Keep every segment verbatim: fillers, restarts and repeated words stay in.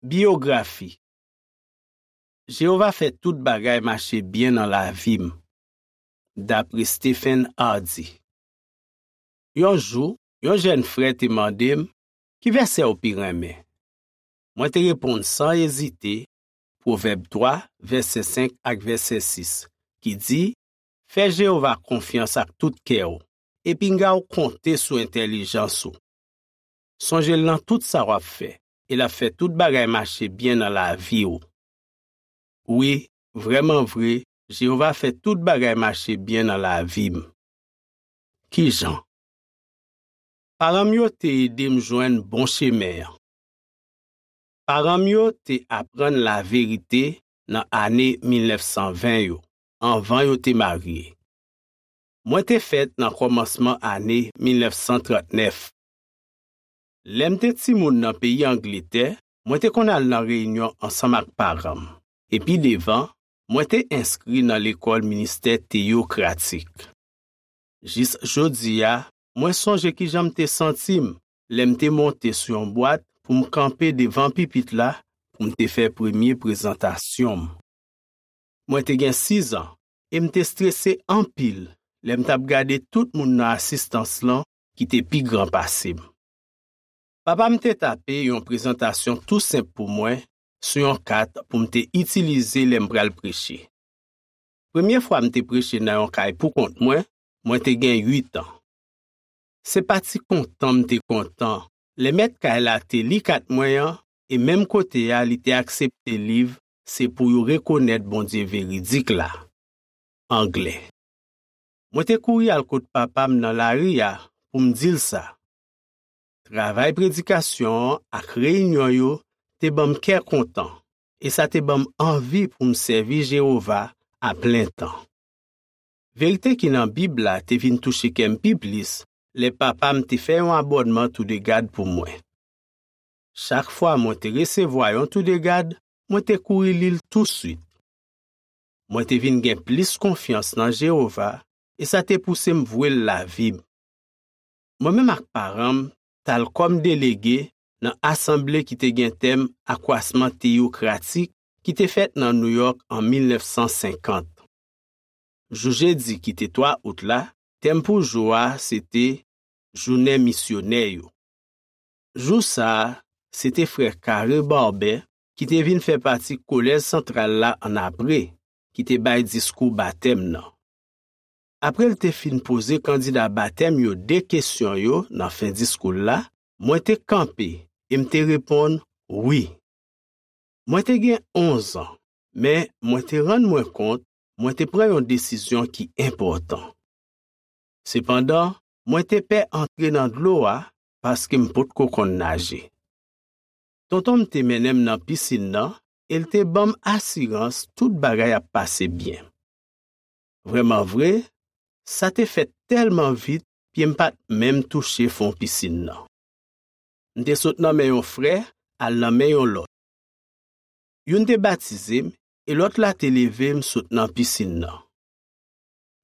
Biyografi. Jewova fè tout bagay mache byen nan lavi m. Dapre Stephen Hardy. Yon jou, yon jèn frè te mande m, "Ki vèsè w pi renmen?" Mwen te reponn san ezite, Pwovèb twa, vèsè senk ak vèsè sis, ki di, "Fè Jewova konfyans ak tout kè w, e pinga w konte sou entèlijans ou. Sonje l nan tout sa w ap fè, e l ap fè tout bagay mache byen nan lavi w." Wi, vrèman vre, Jewova fè tout bagay mache byen nan lavi m. Ki jan? Paran m yo te ede m jwenn bon chemen an. Paran m yo te aprann laverite nan ane mil nèf san ven yo, anvan yo te marye. Mwen te fèt nan kòmansman ane mil nèf san trant nèf. Lè m te timoun nan peyi Angletè, mwen te konn al nan reyinyon ansanm ak paran m. E pi devan, mwen te enskri nan lekòl ministè teyokratik. Jis jodi a, mwen sonje ki jan m te santi m lè m te monte sou yon bwat pou m kanpe devan pipit la pou m te fè premye prezantasyon m. Mwen te gen sizan e m te strese anpil lè m t ap gade tout moun nan asistans lan ki te pi gran pase m. Papa m te tape yon prezantasyon tou senp pou mwen sou yon kat pou m te itilize lè m pral preche. Premye fwa m te preche nan yon kay poukont mwen, mwen te gen uit an. Se pa ti kontan m te kontan lè mèt kay la te li kat mwen an, e menm kote a li te aksepte liv Se pou yo rekonèt Bondye veridik la, anglè. Mwen te kouri al kot papa m nan lari a pou m di l sa. Travay predikasyon an ak reyinyon yo te ban m kè kontan, e sa te ban m anvi pou m sèvi Jewova a plen tan. Verite ki nan Bib la te vin touche kè m pi plis lè papa m te fè yon abònman Toudegad pou mwen. Chak fwa mwen te resevwa yon Toudegad, mwen te kouri li l touswit. Mwen te vin gen plis konfyans nan Jewova, e sa te pouse m vwe l lavi m. Mwen menm ak paran m t al kòm delege nan asanble ki te gen tèm Akwasman Teyokratik ki te fèt nan Nouyòk an mil nèf san senkant. Jou jedi ki te twa out la, tèm pou jou a se te Jounen Misyonè yo. Jou sa a, se te frè Carey Barber ki te vin fè pati Kolèj Santral la annapre, ki te bay diskou batèm nan. Apre l te fin poze kandida batèm yo de kesyon yo nan fen diskou l la, mwen te kanpe e m te reponn wi. Mwen te gen onz an, men mwen te rann mwen kont mwen te pran yon desizyon ki enpòtan. Sepandan, mwen te pè antre nan dlo a paske m potko konn naje. Tonton m te mennen m nan pisin nan e l te ban m asirans tout bagay ap pase byen. Vrèman vre, sa te fèt tèlman vit, pye m pa t menm touche fon pisin nan. M te sot nan men yon frè al nan men yon lòt. Youn te batize m e lòt la te leve m sot nan pisin nan.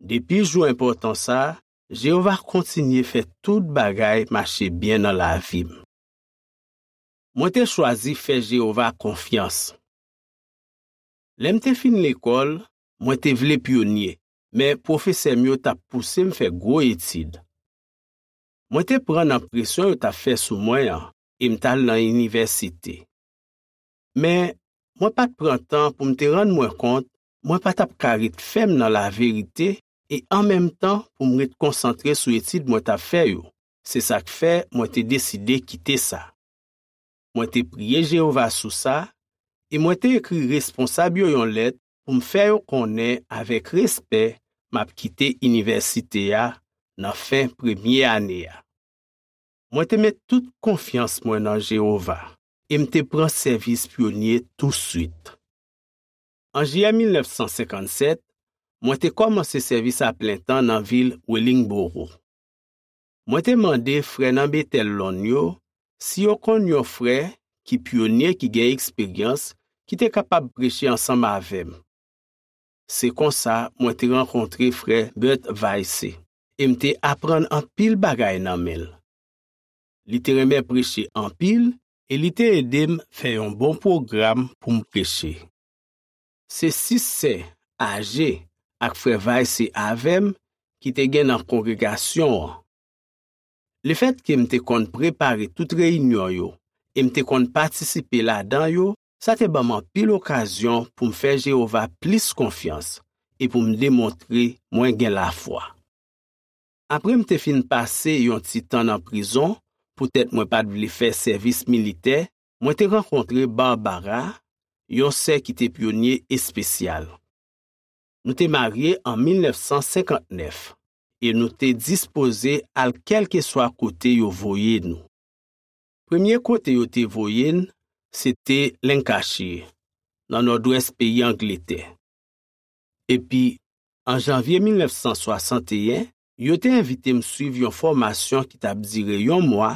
Depi jou enpòtan sa a, Jewova kontinye fè tout bagay mache byen nan lavi m. Mwen te chwazi fè Jewova konfyans. Lè m te fin lekòl, mwen te vle pyonye, men pwofesè m yo t ap pouse m fè gwo etid. Mwen te pran nan presyon yo t ap fè sou mwen an e m t al nan inivèsite. Men, mwen pa t pran tan pou m te rann mwen kont mwen pa t ap ka ret fèm nan laverite e an menm tan pou m ret konsantre sou etid mwen t ap fè yo. Se sa k fè mwen te deside kite sa. Mwen te priye Jewova sou sa e mwen te ekri responsab yo yon lèt pou m fè yo konnen avèk respè m ap kite inivèsite a nan fen premye ane a. Mwen te met tout konfyans mwen nan Jewova e m te pran sèvis pyonye touswit. An jiyè mil nèf san senkannsèt, mwen te kòmanse sèvis a plen tan nan vil Wellingboro. Mwen te mande frè nan Betèl Lonn yo si yo konn yon frè ki pyonye ki gen eksperyans ki te kapab preche ansanm avè m. Se konsa mwen te rankontre frè Bert Vaisse e m te aprann anpil bagay nan men l. Li te renmen preche anpil e li te ede m fè yon bon pwogram pou m preche. Se sis sè aje ak frè Vaise avè m ki te gen nan kongregasyon an. Lefètke m te konn prepare tout reyinyon yo e m te konn patisipe ladan yo, sa te ban m anpil okazyon pou m fè Jewova plis konfyans e pou m demontre mwen gen lafwa. Apre m te fin pase yon ti tan nan prizon poutèt mwen pa t vle fè sèvis militè, mwen te rankontre Barbara, yon sè ki te pyonye espesyal. Nou te marye an mil nèf san senkant nèf e nou te dispoze al kèlkeswa kote yo voye nou. Premye kote yo te voye n, se te Lancashire, nan nòdwès peyi Angletè. Epi, an janvye mil nèf san swasanteyen, yo te envite m swiv yon fòmasyon ki t ap dire yon mwa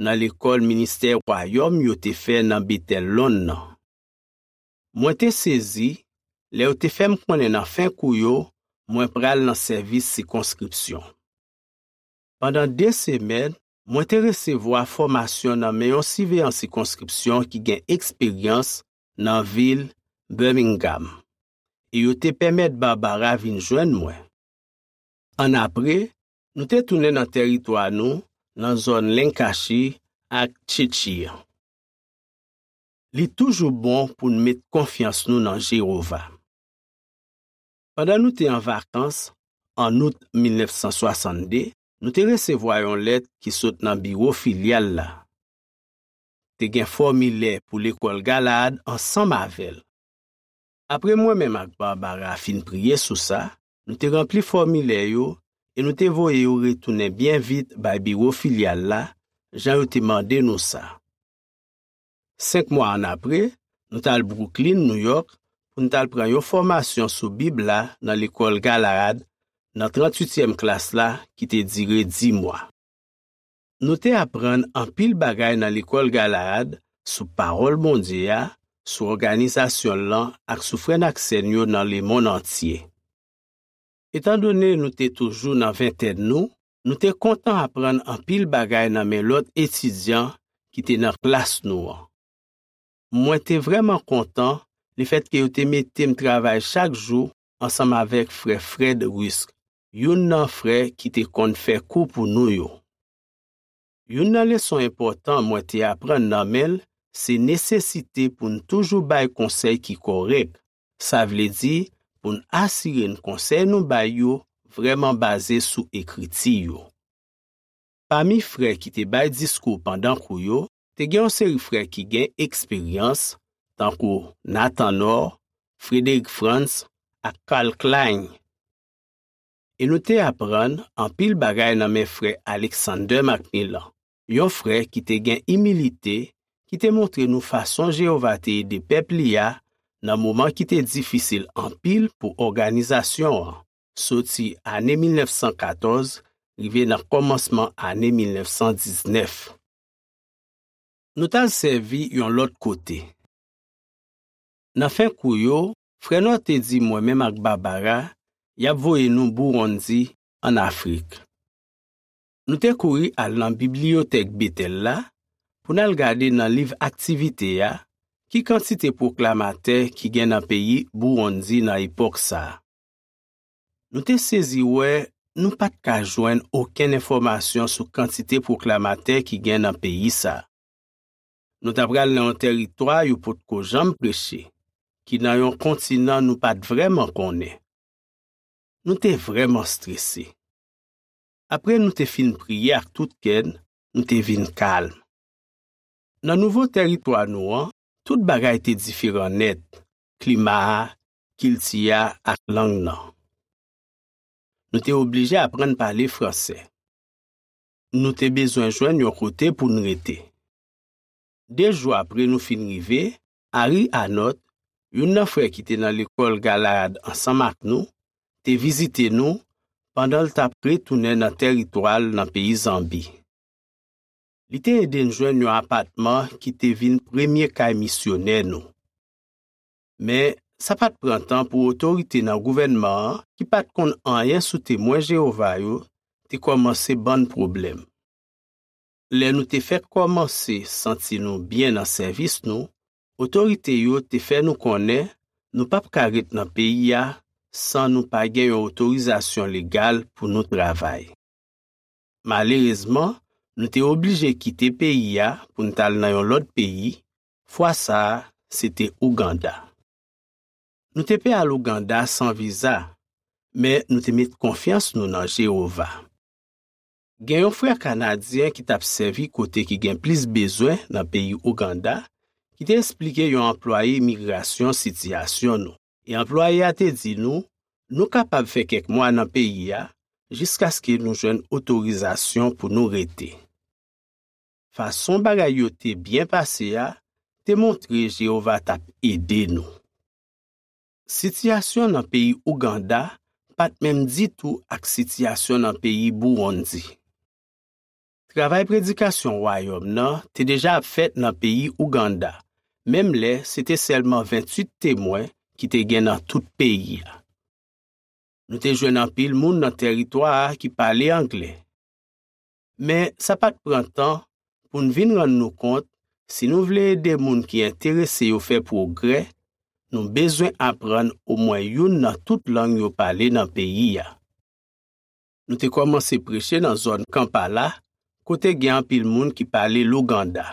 nan Lekòl Ministè Wayòm yo te fè nan Betèl Lonn nan. Mwen te sezi lè yo te fè m konnen nan fen kou yo, mwen pral nan sèvis sikonskripsyon. Pandan de semèn, mwen te resevwa fòmasyon nan men yon siveyan sikonskripsyon ki gen eksperyans nan vil Birmingham, e yo te pèmèt Barbara vin jwenn mwen. Annapre, nou te tounen nan tèritwa nou nan zòn Lancashire ak Cheshire. Li toujou bon pou n met konfyans nou nan Jewova. Pandan nou te an vakans, an out mil nèf san swasannde, nou te resevwa yon lèt ki sot nan biwo filyal la. Te gen fòmilè pou Lekòl Galaad ansanm avè l. Apre mwen menm ak Barbara fin priye sou sa, nou te ranpli fòmilè yo e nou te voye yo retounen byen vit bay biwo filyal la, jan yo te mande nou sa. Senk mwa annapre, nou t al Brooklyn, New York, pou n t al pran yon fòmasyon sou Bib la nan Lekòl Galaad, nan tranntuityèm klas la, ki te dire dis mwa. Nou te aprann anpil bagay nan Lekòl Galaad sou Pawòl Bondye a, sou òganizasyon l lan ak sou frè n ak sè n yo nan lemonn antye. Etandone nou te toujou nan ventèn nou, nou te kontan aprann anpil bagay nan men lòt etidyan ki te nan klas nou an. Mwen te vrèman kontan lefètke yo te mete m travay chak jou ansanm avèk frè Fred Rusk, youn nan frè ki te konn fè kou pou nou yo. Youn nan leson enpòtan mwen te aprann nan men l se nesesite pou n toujou bay konsèy ki kòrèk, sa vle di pou n asire n konsèy nou bay yo vrèman baze sou Ekriti yo. Pami frè ki te bay diskou pandan kou yo, te gen yon seri frè ki gen eksperyans, tankou Nathan Knorr, Frederick Franz ak Karl Klein. E nou te aprann anpil bagay nan men frè Alexander Macmillan, yon frè ki te gen imilite, ki te montre nou fason Jewova te ede pèp li a nan moman ki te difisil anpil pou òganizasyon an, soti ane mil nèf san katòz rive nan kòmansman ane mil nèf san diznèf. Nou t al sèvi yon lòt kote. Nan fen kou yo, frè Knorr te di mwen menm ak Barbara, y ap voye nou Burundi, ann Afrik. Nou te kouri al nan bibliyotèk Betèl la pou n al gade nan liv aktivite a ki kantite pwoklamatè ki gen nan peyi Burundi nan epòk sa a. Nou te sezi wè nou pa t ka jwenn okenn enfòmasyon sou kantite pwoklamatè ki gen nan peyi sa a. Nou t apral nan yon tèritwa yo potko janm preche, ki nan yon kontinan nou pa t vrèman konnen. Nou te vrèman strese. Apre nou te fin priye ak tout kè n, nou te vin kalm. Nan nouvo tèritwa nou an, tout bagay te diferan nèt, klima a, kilti a ak lang nan. Nou te oblije aprann pale fransè. Nou te bezwen jwenn yon kote pou n rete. De jou apre nou fin rive, Harry Hanot, youn nan frè ki te nan lekòl Galaad ansanm ak nou, te vizite nou pandan l t ap retounen nan tèritwa l nan peyi Zanbi. Li te ede n jwenn yon apatman ki te vin premye kay misyonè nou. Men, sa pa t pran tan pou otorite nan gouvènman an, ki pa t konn anyen sou Temwen Jewova yo, te kòmanse ban n pwoblèm. Lè nou te fèk kòmanse santi nou byen nan sèvis nou, otorite yo te fè nou konnen nou p ap ka ret nan peyi a san nou pa gen yon otorizasyon legal pou nou travay. Malerezman, nou te oblije kite peyi a pou n t al nan yon lòt peyi, fwa sa a, se te Ouganda. Nou te pe al Ouganda san viza, men nou te met konfyans nou nan Jewova. Gen yon frè kanadyen ki t ap sèvi kote ki gen plis bezwen nan peyi Ouganda, ki te esplike yon anplwaye imigrasyon sitiyasyon nou. E anplwaye a te di nou, nou kapab fè kèk mwa nan peyi a jiskaske nou jwenn otorizasyon pou nou rete. Fason bagay yo te byen pase a te montre Jewova t ap ede nou. Sitiyasyon nan peyi Ouganda pa t menm ditou ak sitiyasyon nan peyi Burundi. Travay predikasyon Wayòm nan te deja ap fèt nan peyi Ouganda, menm lè se te sèlman venntuit Temwen ki te gen nan tout peyi a. Nou te jwenn anpil moun nan tèritwa a ki pale anglè. Men, sa pa t pran tan pou n vin rann nou kont, si nou vle ede moun ki enterese yo fè pwogrè, nou bezwen aprann omwen youn nan tout lang yo pale nan peyi a. Nou te kòmanse preche nan zòn Kampala, kote gen anpil moun ki pale Luganda.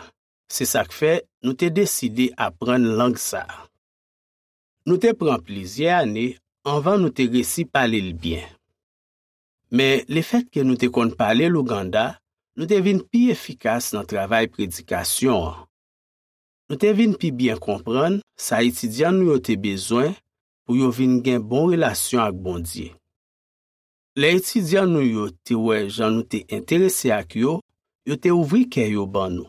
Se sa k fè nou te deside aprann lang sa a. Nou te pran plizyè ane anvan nou te resi pale l byen. Men, lefètke nou te konn pale Luganda, nou te vin pi efikas nan travay predikasyon an. Nou te vin pi byen konprann sa etidyan nou yo te bezwen pou yo vin gen bon relasyon ak Bondye. Lè etidyan nou yo te wè jan nou te enterese ak yo, yo te ouvri kè yo ban nou,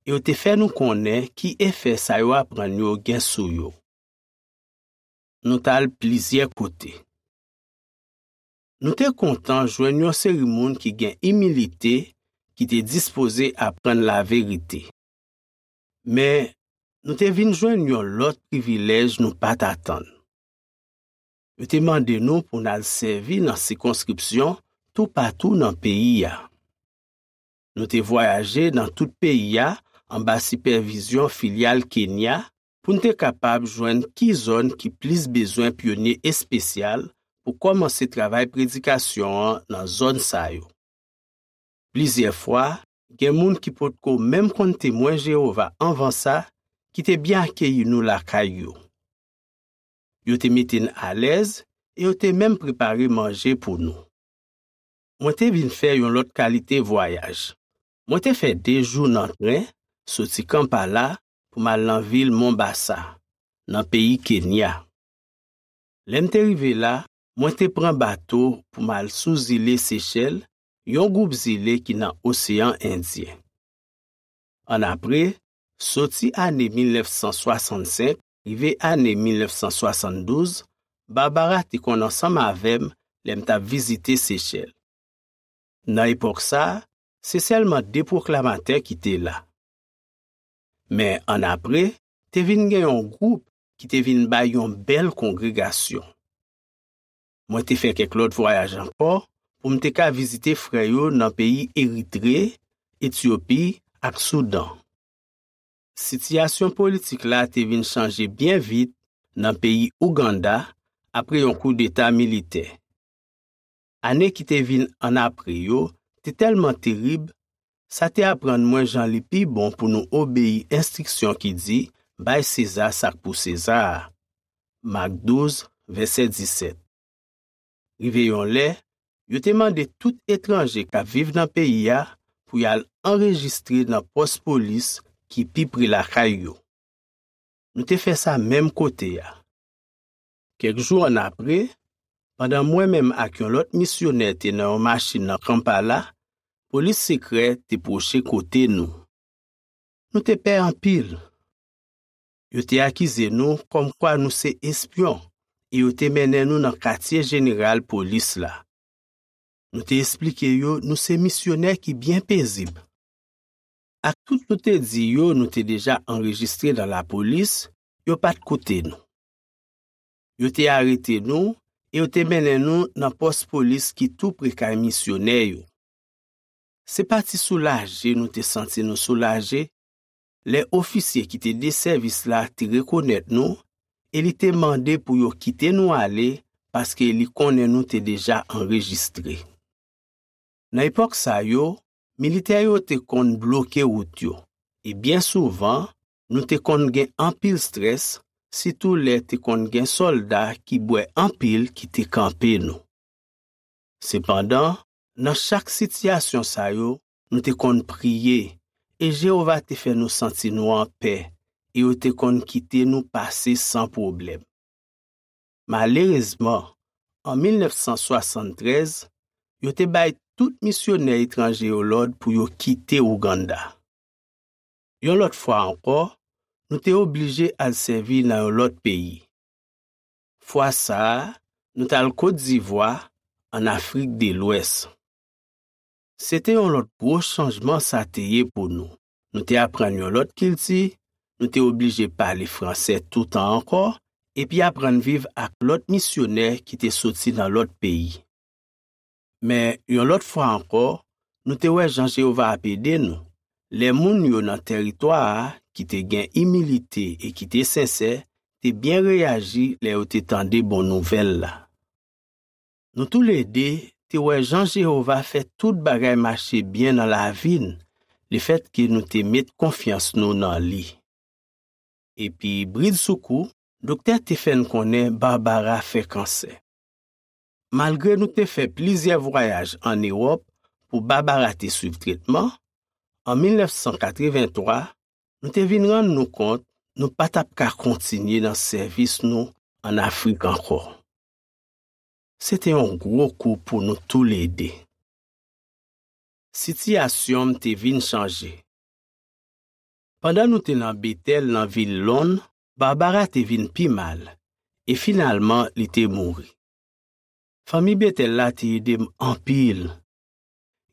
e yo te fè nou konnen ki efè sa yo aprann yo gen sou yo. Nou t al plizyè kote. Nou te kontan jwenn yon seri moun ki gen imilite, ki te dispoze aprann laverite. Men, nou te vin jwenn yon lòt privilèj nou pa t atann. Yo te mande nou pou n al sèvi nan sikonskripsyon toupatou nan peyi a. Nou te vwayaje nan tout peyi a anba sipèvizyon filyal Kenya pou n te kapab jwenn ki zòn ki plis bezwen pyonye espesyal pou kòmanse travay predikasyon an nan zòn sa yo. Plizyè fwa, gen moun ki potko menm konn Temwen Jewova anvan sa ki te byen akeyi nou lakay yo. Yo te mete n alèz e yo te menm prepare manje pou nou. Mwen te vin fè yon lòt kalite vwayaj. Mwen te fè de jou nan tren, soti Kampala pou m al nan vil Mombasa, nan peyi Kenya. Lè m te rive la, mwen te pran bato pou m al sou zile Sechèl, yon gwoup zile ki nan Oseyan Endyen. Annapre, soti ane mil nèf san swasannsenk rive ane mil nèf san swasanndouz, Barbara te konn ansanm avè m lè m t ap vizite Sechèl. Nan epòk sa a, se sèlman de pwoklamatè ki te la. Men annapre, te vin gen yon gwoup ki te vin bay yon bèl kongregasyon. Mwen te fè kèk lòt vwayaj ankò pou m te ka vizite frè yo nan peyi Eritre, Etyopi ak Soudan. Sitiyasyon politik la te vin chanje byen vit nan peyi Ouganda apre yon koudeta militè. Ane ki te vin annapre yo te tèlman terib, sa te aprann mwen jan li pi bon pou nou obeyi enstriksyon ki di, "Bay Seza sa k pou Seza a." Mak douz, vèsè disèt. Rive yon lè, yo te mande tout etranje k ap viv nan peyi a pou y al anrejistre nan pòs polis ki pi pre lakay yo. Nou te fè sa menm kote a. Kèk jou annapre, pandan mwen menm ak yon lòt misyonè te nan yon machin nan Kampala, polis sekrè te pwoche kote nou. Nou te pè anpil. Yo te akize nou kòmkwa nou se espyon e yo te mennen nou nan katye jeneral polis la. Nou te esplike yo nou se misyonè ki byen pezib. Ak tout nou te di yo nou te deja anrejistre nan lapolis, yo pa t koute nou. Yo te arete nou e yo te mennen nou nan pòs polis ki tou pre kay misyonè yo. Se pa ti soulaje nou te santi nou soulaje lè ofisye ki te de sèvis la te rekonèt nou e li te mande pou yo kite nou ale paske li konnen nou te deja anrejistre. Nan epòk sa yo, militè yo te konn bloke wout yo, e byen souvan, nou te konn gen anpil estrès, sitou lè te konn gen sòlda ki bwè anpil ki te kanpe nou. Sepandan, nan chak sitiyasyon sa yo, nou te konn priye, e Jewova te fè nou santi nou anpè, e yo te konn kite nou pase san pwoblèm. Malerezman, an mil nèf san swasanntrèz, yo te bay tout misyonè etranje yo lòd pou yo kite Ouganda. Yon lòt fwa ankò, nou te oblije al sèvi nan yon lòt peyi. Fwa sa a, nou t al Kot Divwa, ann Afrik de Lwès. Se te yon lòt gwo chanjman sa te ye pou nou. Nou te aprann yon lòt kilti, nou te oblije pale franse toutan ankò, epi aprann viv ak lòt misyonè ki te soti nan lòt peyi. Men, yon lòt fwa ankò, nou te wè jan Jewova ap ede nou, lè moun yo nan tèritwa a ki te gen imilite e ki te sensè te byen reyaji lè yo te tande bon nouvèl la. Nou toulede te wè jan Jewova fè tout bagay mache byen nan lavi n, lefètke nou te met konfyans nou nan li. Epi, bridsoukou, doktè te fè n konnen Barbara fè kansè. Malgre nou te fè plizyè vwayaj ann Ewòp pou Barbara te swiv tretman, an mil nèf san katrevenntwa, nou te vin rann nou kont nou pa t ap ka kontinye nan sèvis nou ann Afrik ankò. Se te yon gwo kou pou nou toulede. Sitiyasyon m te vin chanje. Pandan nou te nan Betèl nan vil Lonn, Barbara te vin pi mal, e finalman li te mouri. Fanmi Betèl la te ede m anpil.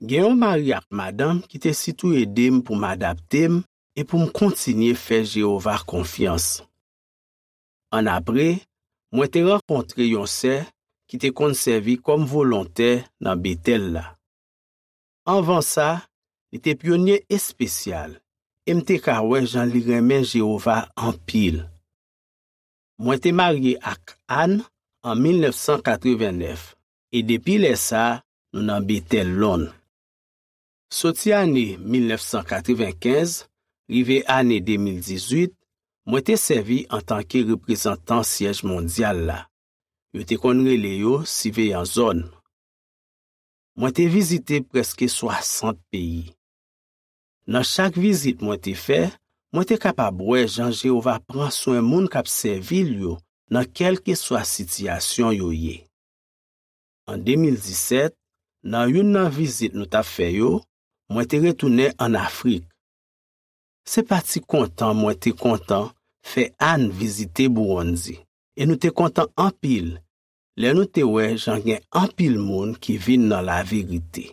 Gen yon mari ak madanm ki te sitou ede m pou m adapte m e pou m kontinye fè Jewova konfyans. Annapre, mwen te rankontre yon sè ki te konn sèvi kòm volontè nan Betèl la. Anvan sa, li te pyonye espesyal, e m te ka wè jan li renmen Jewova anpil. Mwen te marye ak Ann an mil nèf san katrevennèf, e depi lè sa a, nou nan Betèl Lonn. Soti ane mil nèf san katrevenkenz rive ane de mil dizuit, mwen te sèvi antanke reprezantan syèj mondyal la. Yo te konn rele yo siveyan zòn. Mwen te vizite prèske swasant peyi. Nan chak vizit mwen te fè, mwen te kapab wè jan Jewova pran swen moun k ap sèvi l yo nan kèlkeswa sitiyasyon yo ye. An de mil disèt, nan youn nan vizit nou t ap fè yo, mwen te retounen ann Afrik. Se pa ti kontan mwen te kontan fè Ann vizite Buwonndi, e nou te kontan anpil lè nou te wè jan gen anpil moun ki vin nan laverite.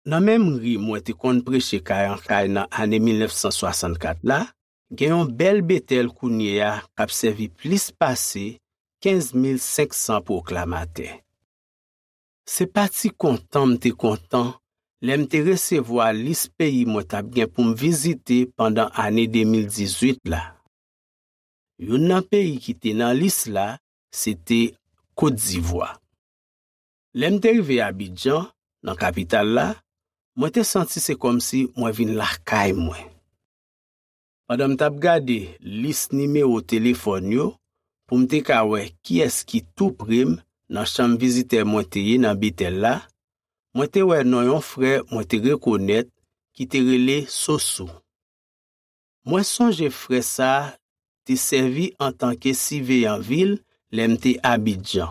Nan menm ri mwen te konn preche kay an kay nan ane mil nèf san swasannkat la, gen yon bèl Betèl kounye a k ap sèvi plis pase kenz mil senk san pwoklamatè. Se pa ti kontan m te kontan lè m te resevwa lis peyi mwen t ap gen pou m vizite pandan ane de mil dizuit la. Youn nan peyi ki te nan lis la, se te Kot Divwa. Lè m te rive Abidjan, nan kapital la, mwen te santi se kòmsi mwen vin lakay mwen. Pandan m t ap gade lis nimewo telefòn yo pou m te ka wè kiyès ki tou pre m nan chanm vizitè mwen te ye nan Betèl la, mwen te wè non yon frè mwen te rekonèt ki te rele Sosou. Mwen sonje frè sa a te sèvi antanke siveyan vil lè m te Abidjan.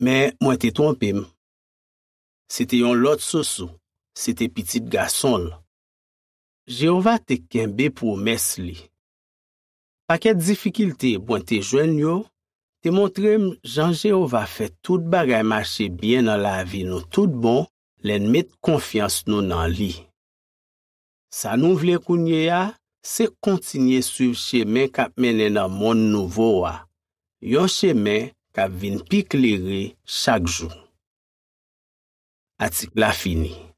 Men mwen te twonpe m. Se te yon lòt Sosou, se te pitit gason l. Jewova te kenbe pwomès li. Pakèt difikilte mwen te jwenn yo te montre m jan Jewova fè tout bagay mache byen nan lavi nou tout bon lè n met konfyans nou nan li. Sa nou vle kounye a, se kontinye swiv chemen k ap mennen nan monn nouvo a, yon chemen k ap vin pi klere chak jou. Atik la fini.